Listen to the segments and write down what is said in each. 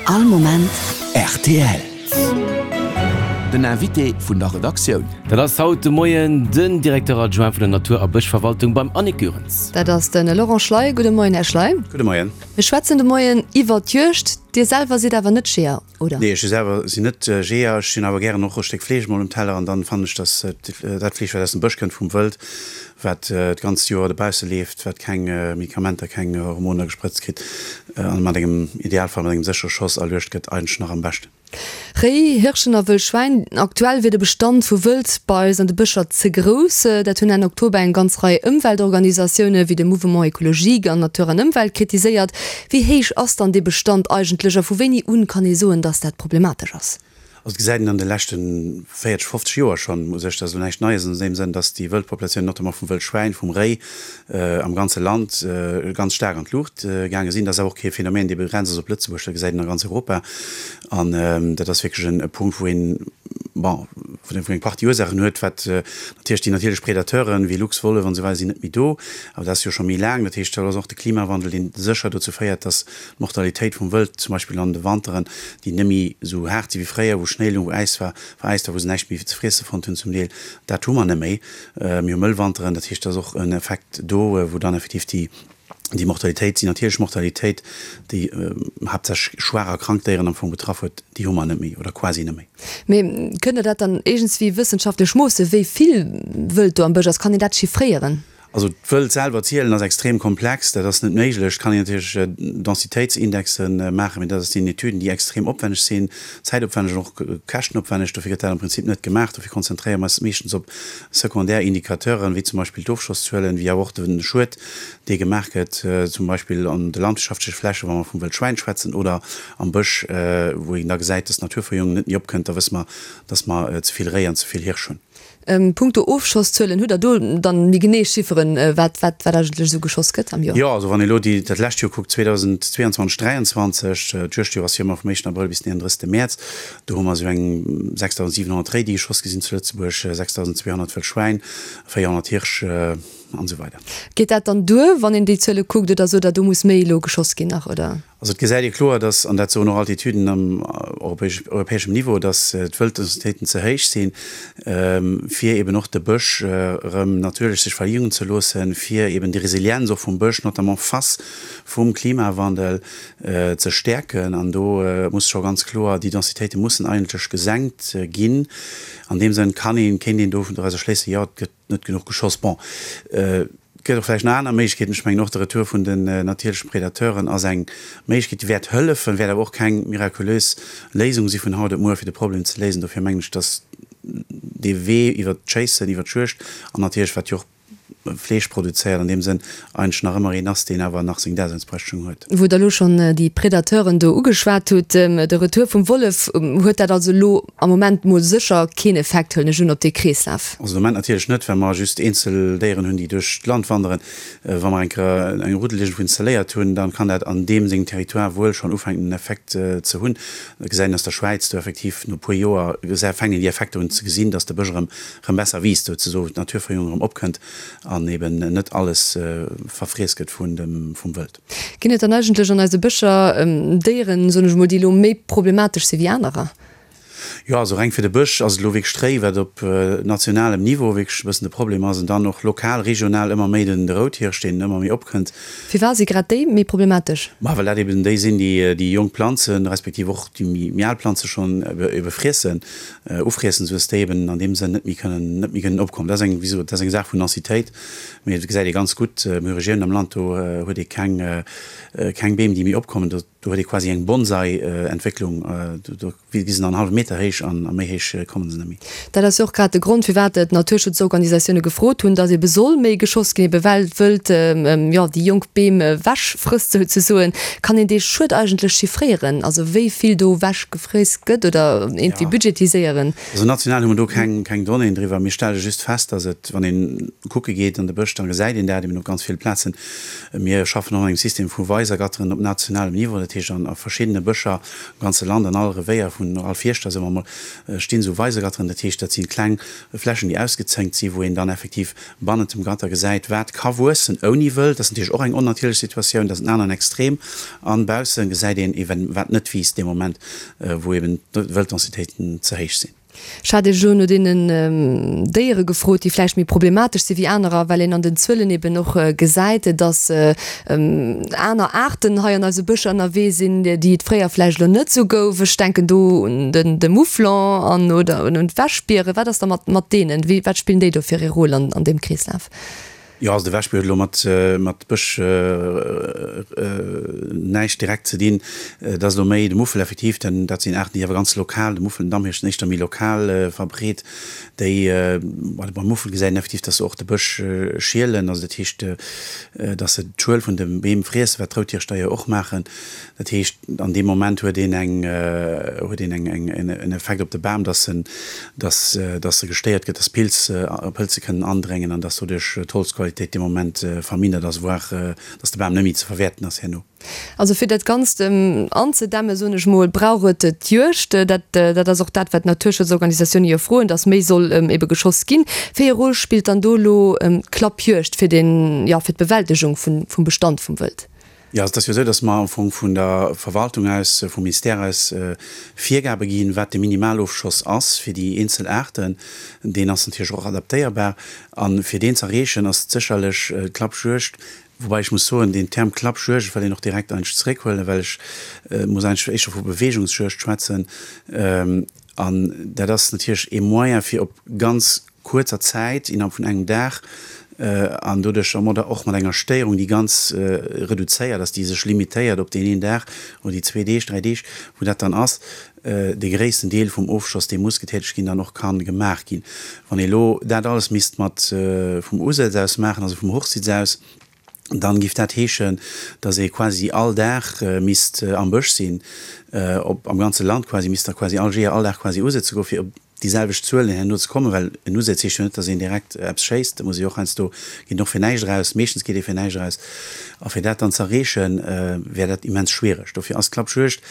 All Moment rtl. Den Invité vun der Redaktioun. Dat ass haut de Moien den Directeur adjoint vun der Natur a Bëschverwaltung beim Annick Goerens. Dat ass de Laurent Schley. Gudde Moien, Här Schley. Gudde Moien. Mir schwätzen de Moien iwwer d'Juegd. Dir selwer sidd awer net Jeeër, oder? Nee, ech selwer sinn net Jeeër. Ech hunn awer gären och e Stéck Fleesch mol um Teller an dann fannen ech, dass dat Fleesch, wat aus dem Bësch kënnt, vum Wëld, wat d'ganzt Joer dobausse leeft, wat keng Medikamenter, keng Hormoner gesprëtzt kritt an mat engem, Idealfall mat engem séchere Schoss erluecht gëtt, eigentlech nach am beschten. Réi, Hirschen a Wëll Schwäin, Aktuell wier de Bestand vu Wëld bei eis an de Bëscher ze grouss. Dat hunn Enn Oktober eng ganz Rei Ëmweltorganisatioune wéi de Mouvement Ecologique an Natur an Ëmwelt kritiséiert. Wéi héich ass dann dee Bestand eigentlech a vu wéini un kann ee soen, datt dat problematesch ass? Also et gesäit een an de leschte 40, 50 Joer schonn u sech, dat ass elo näischt Neies an deem Sënn, datt déi Wëldpopulatioun, notamment vum Wëldschwäin, vum Réi, am ganze Land ganz staark an d'Luucht gaange sinn. Dat ass awer och kee Phänomen, dee begrenzt ass op Lëtzebuerg, dat gesäit een a ganz Europa. An dat ass wierklech e Punkt, wou een, bon, wou eng Partie Ursaachen huet, wat natierlech déi natierlech Predateuren, wéi Luchs, Wollef an esou weider sinn net méi do, awer dat ass jo scho méi laang. Dat heescht, dat ass och de Klimawandel, deen sécher dozou féiert, datt D'Mortalitéit vum Wëld, zum Beispill an de Wanteren, déi net méi esou haart si wéi fréier, wou Schnéi lung, wou Äis war, veräist war, wou se näischt méi ze friesse fonnt hunn zum Deel, dat hu mer net méi. Mir hu mëll Wanteren, dat heescht, et ass och en Effekt do, wou dann effektiv déi, déi Mortalitéit, déi natierlech Mortalitéit, déi haaptsächlech schwaach a krank Déieren am Fong betraff huet, déi hu mer net méi oder quasi net méi. Mee kënnt Der dat dann iergendswéi wëssenschaftlech moossen, wéi vill Wëld do am Bësch ass? Kann een dat chiffréieren? Also d'Wëld selwer zielen ass extrem komplex, dat ass net méiglech. Et kann een natierlech Densitéitsindexen maachen, mee dat sinn Etüden, déi extrem opwenneg sinn, zäitopwenneg an och käschtenopwenneg. Dofir gëtt dat am Prinzip net gemaach. Dofir konzentréiere mer eis meeschtens op sekondär Indicateuren, wéi zum Beispill d'Ofschosszuelen, wéi awer och de Schued, dee gemaach gëtt, zum Beispill an de landwirtschaftleche Flächen, wa mer vum Wëldschwäin schwätzen, oder am Bësch, wou een da gesäit, dass d'Naturverjüngung net méi opkënnt. Da wësse mer, dass mer ze vill Réi an ze vill Hirsch hunn. Punkto Ofschosszuelen, hutt Der do dann méi genee Chifferen, wat wat eigentlech esou geschoss gëtt am Joer? Jo, also wann ee elo déi dat lescht Joer kuckt, 2022, 23, d'Juegdjoer ass jo ëmmer vum éischten Abrëll bis den 31. Mäerz, do hu mer esou eng 6.700 Réi, déi geschoss gi sinn zu Lëtzebuerg, 6.200 Wëll Schwäin, 400 Hirsch an esou weider. Geet dat dann duer, wann een déi Zuele kuckt, oder sot Der, do muss méi elo geschoss ginn nach, oder? Also et gesäit ee kloer, dass, an dat soen och all d'Etüden am europäeschem Niveau, dass d'Wëlddensitéiten ze héich sinn, fir eben och de Bësch erëm natierlech sech verjüngen ze loossen, fir eben déi Resilienz och vum Bësch, notamment face vum Klimawandel, ze stäerken. An do muss scho ganz kloer, déi Densitéite mussen eigentlech gesenkt ginn. An deem Sënn kann een, kéint een dorausser schléissen, jo, et gëtt net genuch geschoss. Bon, et gëtt och vläicht nach aner Méiglechkeeten. Ech mengen och de Retour vun den natierlechen Predateuren ass eng Méiglechkeet, déi wäert hëllefen, wäert awer och keng mirakulös Léisung si vun haut op muer, fir de Problem ze léisen. Dofir mengen ech, dass dee Wee iwwert d'Schéissen, iwwert d'Juegd an natierlech, wat jo och Fleesch produzéiert, an deem Sënn eigentlech nach ëmmer een ass, deen awer nach seng Daseinsberechtigung huet. Wou Der elo schonn déi Predateuren do ugeschwat hutt, de Retour vum Wollef, huet dat also elo am Moment mol sécher keen Effekt, huelen ech un, op dee Kreeslaf? Also de Moment natierlech net, well mer just eenzel Déieren hunn, déi duerch d'Land wanderen. Wa mer eng Kéier eng Ruddel iergendwou installéiert hunn, dann kann dat an deem sengem Territoire wuel schonn ufänken en Effekt ze hunn. Dat gesäit een aus der Schwäiz, do effektiv no e puer Joer fänken déi Effekter un ze gesinn, dass de Bësch erëm erëm besser wiisst, souzesoen d'Naturverjüngung erëm opkënnt an eben net alles verfriess gëtt vun dem vum Wëld. Ginn et dann eigentlech an eise Bëscher Déieren, soen ech emol, déi elo méi problematesch si wéi anerer? Jo, also reng fir de Bësch ass et elo wierklech d'Réi, wat op nationalem Niveau wierklech e bëssen de Problem ass, an dann och lokal, regional ëmmer méi den de Routhirsch, deen ëmmer méi opkënnt. Firwat si grad déi méi problematesch? Ma well dat eben déi sinn, déi déi jonk Planzen, respektiv och déi méi al Planze schonn ebe friessen. Ufriessen, sou dass déi eben an deem Sënn net méi kënnen, net méi kënnen opkommen. Dat ass eng, wéi gesot, dat ass eng Saach vun Densitéit, mee et gesäit ee ganz gutt, mir hu Regiounen am Land, do huet ee keng, keng Beem, déi méi opkommen, do, do huet ee quasi eng Bonsai-Entwécklung, do, do gi se dann en hallwe Meter héich an a méi héich komme se net méi. Dat ass jo och grad de Grond, firwat d'Naturschutzorganisatioune gefrot hunn, dass ebe soll méi geschoss ginn, ebe well d'Wëld, jo, déi jonk Beem ewechfrësst souzesoen. Kann een dee Schued eigentlech chiffréieren, also wéi vill do ewechgefriess gëtt oder iergendwéi budgetiséieren? Also national hu mer do keng, keng Donnéeën driwwer. Mir stelle just fest, dass et, wann een kucke geet an de Bësch, da gesäit een dat eben op ganz ville Plazen. Mir schaffen och an engem System vu Weisergatteren op nationalem Niveau. Dat heescht an a verschiddene Bëscher am ganze Land, an all Revéier vun all Fierschter, soe mer emol, stinn esou Weisegatteren. Dat heescht, dat si kleng Flächen, déi ausgezénkt sinn, wou een dann effektiv bannent dem Gatter gesäit, wat ka wuessen ouni Wëld. Dat ass natierlech och eng onnatierlech Situatioun, dat ass en aneren Extrem. An bausse gesäit een eben, wat net wiisst dee Moment, wou eben d'Wëlddensitéiten ze héich sinn. Ech hat Iech elo no deenen Déiere gefrot, déi vläicht méi problematesch si wéi anerer, well een an den Zuelen eben och gesäit, dass aner Aarten hei an eise Bëscher ënnerwee sinn, déi et fréier vläicht elo net esou gouf. Ech denken do un de Mouflon an oder un d'Wäschbieren. Wat ass da mat mat deenen? Wéi, wat spillen déi do fir ee Rôle an an deem Kreeslaf? Jo, also de Wäschbier huet elo mat mat Bësch näischt direkt ze dinn. Dat ass elo méi de Muffel effektiv, denn dat sinn Aarten, déi awer ganz lokal, de Muffel, den Damhirsch sinn éischter méi lokal verbreet. Déi, beim Muffel gesäit een effektiv, dass se och de Bësch schielen, also dat heescht, dass se d'Schuel vun de Beem friessen, wat d'Routhirschdeier och maachen. Dat heescht, an deem Moment huet een eng, huet een eng, eng, en Effekt op de Bam, dass en, dass, dass e gestéiert gëtt, dass Pilz, Pëlze kënnen andréngen an dass doduerch d'Holzqualitéit dee Moment vermindert ass, voire dass de Bam net méi ze verwäerten ass herno. Also fir dat Ganzt anzedämmen, soen ech mol, brauch et d'Juegd. Dat, dat ass och dat, wat d'Naturschutzorganisatioune jo froen, dass méi soll ebe geschoss ginn. Wéi e Rôle spillt dann do elo d'Klappjuegd fir den, jo, fir d'Bewältegung vun, vum Bestand vum Wëld? Jo, also et ass jo esou, datt mer am Fong vun der Verwaltung aus, vum Ministère aus Virgabe ginn, wat de Minimalofschoss ass fir déi eenzel Aarten. Deen ass natierlech och adaptéierbar. A fir deen z'erreechen, ass et sécherlech d'Klappjuegd, woubäi ech muss soen, deen Term Klappjuegd, ech wëll deen och direkt eigentlech zeréckhuelen, well ech muss eigentlech éischter vu Bewegungsjuegd schwätzen. An dat ass natierlech ee Moyen, fir op ganz kuerzer Zäit, innerhalb vun engem Dag, an doduerch och mat enger Stéierung, déi ganz reduzéiert ass, déi sech limitéiert op deen een Dag oder déi zwee Deeg, dräi Deeg, wou dat dann ass, dee gréissten Deel vum Ofschoss, dee muss getätegt ginn, dann och ka gemaach ginn. Wann ee elo dat alles misst mat vum Usëtz aus maachen, also vum Hochsitz aus, dann giff dat heeschen, dass ee quasi all Dag misst am Bësch sinn, op am ganze Land quasi, misst da quasi all Jeeër all Dag quasi usëtze goen, fir op déi selwecht Zuelen herno ze kommen, well en Usëtz heescht jo net, dass een direkt eppes schéisst, da muss ee jo och heiansdo, geet een och fir näischt eraus, meeschtens geet ee fir näischt eraus, a fir dat dann z'erreechen, wär dat immens schwiereg. Dofir ass d'Klappjuegd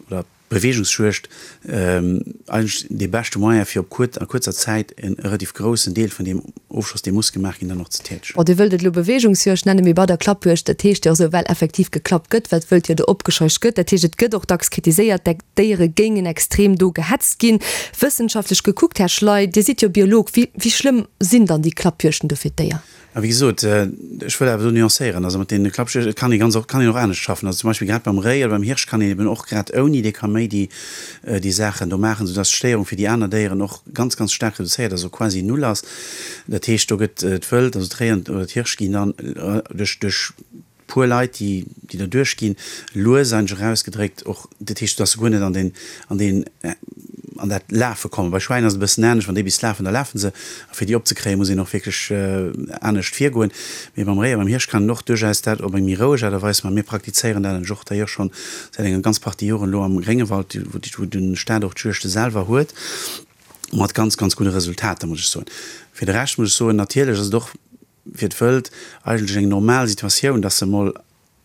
oder. Beweegungsjuegd eigentlech dee beschte Moyen fir op kuer a kuerzer Zäit en relativ groussen Deel vun deem Ofschoss dee muss gemaach ginn dann och ze tätegen. Bon, Dir wëllt et elo Beweegungsjuegd nennen, mee bei der Klappjuegd, dat heescht jo och esou, well effektiv geklappt gëtt, well d'Wëld jo do opgescheucht gëtt. Dat heescht, et gëtt och dacks kritiséiert, d'Déiere géingen extrem do gehetzt ginn. Wëssenschaftlech gekuckt, Här Schley, Dir sidd jo Biolog, wéi wéi schlëmm sinn dann déi Klappjuegten do fir d'Déier? A wéi gesot, ech wëll awer do nuancéieren, also mat deene Klappjuegten, et kann ee ganz och, kann een och anescht schaffen. Also zum Beispill grad beim Réi oder beim Hirsch kann een eben och grad ouni dee Kaméidi déi Saachen do maachen, soudass d'Stéierung fir déi aner Déieren och ganz, ganz staark reduzéiert ass, also quasi null ass. Dat heescht, do gëtt d'Wëld, also d'Réi an oder d'Hirsch ginn dann duerch, duerch puer Leit, déi, déi der duerchginn, lues eigentlech erausgedréckt och, dat heescht, dass se guer net an deen, an deen, an dat Lafe kommen. Bei Schwäin ass et e bëssen anescht, wann déi bis lafen, da lafe se, a fir déi opzekréien, muss een och wierklech anescht virgoen. Mee beim Réi a beim Hirsch kann een och duerchaus dat op eng méi roueg Aart a Weis maachen. Mir praktizéieren dat eigentlech och d'ailleurs schonn säit enger ganz Partie Joren elo am Gréngewald, wou, wou de Staat och d'Juegde selwer huet, mat ganz, ganz gudde Resultater, muss ech soen. Fir de Rescht muss ech soen, natierlech ass et och fir d'Wëld eigentlech eng normal Situatioun, dass se emol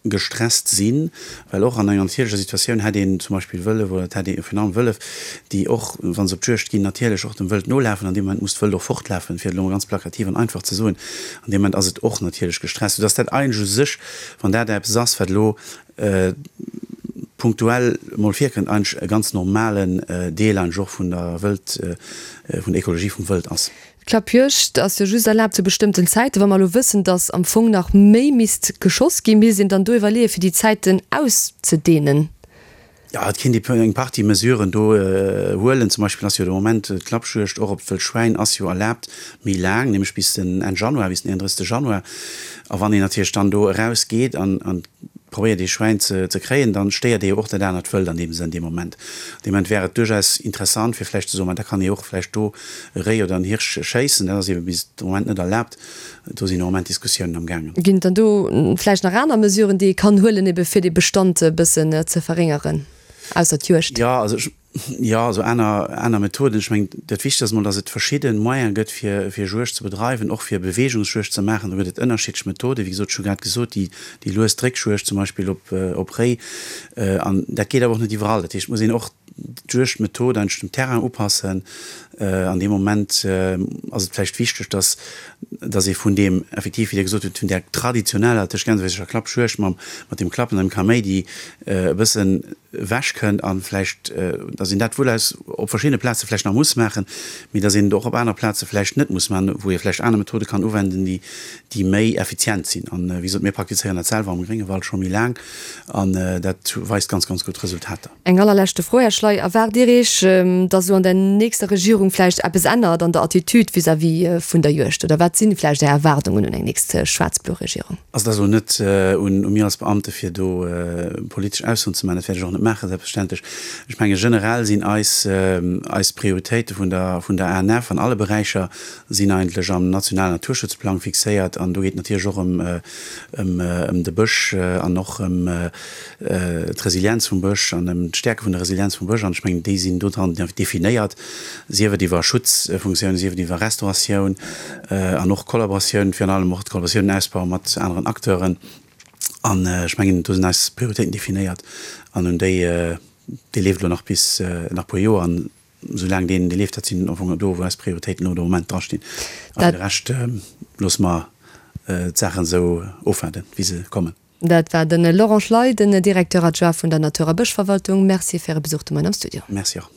gestresst sinn, well och an enger natierlecher Situatioun hätt een zum Beispill Wëllef oder et hätt ee virun allem Wëllef, déi och, wa se op d'Juegd ginn, natierlech och dem Wëld nolafen. An deem Moment muss d'Wëld och fortlafen, fir et elo mol ganz plakativ an einfach ze soen. An deem Moment ass et och natierlech gestresst, soudass dat eigentlech u sech, wann dat eppes ass, wat elo punktuell mol virkënnt, eigentlech e ganz normalen Deel eigentlech och vun der Wëld, vun der Ekologie vum Wëld ass. D'Klappjuegd ass jo just erlaabt zu bestëmmten Zäiten. Wa mer elo wëssen, datt am Fong nach méi misst geschoss ginn, misst een dann do iwwerleeën, fir déi Zäiten auszedehnen? Jo, et kéint ee eng Partie Mesuren do huelen. Zum Beispill ass jo de Moment d'Klappjuegd och op d'Wëllschwäin ass jo erlaabt méi laang, nämlech bis den Enn Januar, bis den 31. Januar. A wann een natierlech dann do erausgeet an probéiert ee Schwäin ze kréien, dann stéiert ee jo och dat anert Wëld an deem Sënn dee Moment. Dee Moment wär et duerchaus interessant fir vläicht ze soen, ma da kann ee och vläicht do e Réi oder en Hirsch schéissen. Dat ass ebe bis de Moment net erlaabt. Do sinn am Moment Diskussiounen am gaangen. Ginn et dann do vläicht nach aner Mesuren, déi ee kann huelen, ebe fir dee Bestand e bëssen ze verréngeren, ausser d'Juegd? Jo, also ech. Jo, also aner, aner Methoden. Ech mengen, dat Wichtegst ass emol, datt et verschidde Moyene gëtt, fir, fir Juegd ze bedreiwen, och fir Beweegungsjuegd ze maachen. Do gëtt et ënnerschiddlech Methoden. Wéi gesot, ech hu grad gesot, déi, déi lues Dréckjuegd zum Beispill op, op Réi. An dat geet awer och net iwwerall. Dat heescht, et muss een och d'Juegdmethod eigentlech dem Terrain upassen. An deem Moment ass et vläicht wichteg, datt, datt ee vun deem effektiv, wéi Dir gesot hutt, vun där traditioneller, tëscht Gänsefüsercher Klappjuegd mam, mat deem Klappen an dem Kaméidi e bëssen ewech kënnt an vläicht, dass een dat wuel aus op verschiddene Plaze vläicht nach muss maachen, mee dass een et och op anere Plaze vläicht net muss maachen, wou ee vläicht aner Methode kann uwenden, déi, déi méi effizient sinn. An, wéi gesot, mir praktizéieren dat selwer am Gréngewald scho méi laang an dat weist ganz, ganz gutt Resultater. Eng allerleschte Fro, Här Schley, Erwaart Dir Iech, dass elo an der nächster Regierung vläicht eppes ännert an der Attitude vis-à-vis vun der Juegd? Oder wat si vläicht Är Erwaardungen un eng nächst schwaarz-blo Regierung? Also et ass elo net un mir als Beamte fir do politesch Aussoen ze maachen, dat wäert ech och net maachen, selbstverständlech. Ech menge generell sinn eis eis Prioritéite vun der vun der ANF an alle Beräicher sinn eigentlech am nationalen Naturschutzplang fixéiert an do geet et natierlech och ëm ëm ëm de Bësch an och ëm d'Resilienz vum Bësch an ëm d'Stäerke vun der Resilienz vum Bësch an ech mengen déi sinn do dran definéiert, sief et iwwer Schutzfunktiounen, sief et iwwer Restauratioun. An och Kollaboratioun, virun allem och d'Kollaboratioun, den Ausbau mat aneren Acteuren. An ech mengen, do sinn eis Prioritéiten definéiert an un déi, dee leeft elo nach bis nach e puer Joer. An esoulaang deen, dee leeft, dat sinn am Fong do, wou eis Prioritéiten elo de Moment drastinn. A fir de Rescht loosse mer d'Saachen esou ofwaarden, wéi se kommen. Dat war de Laurent Schley, den Directeur adjoint vun der Natur a Bëschverwaltung. Merci fir Äre Besuch de Moien am Studio. Merci och.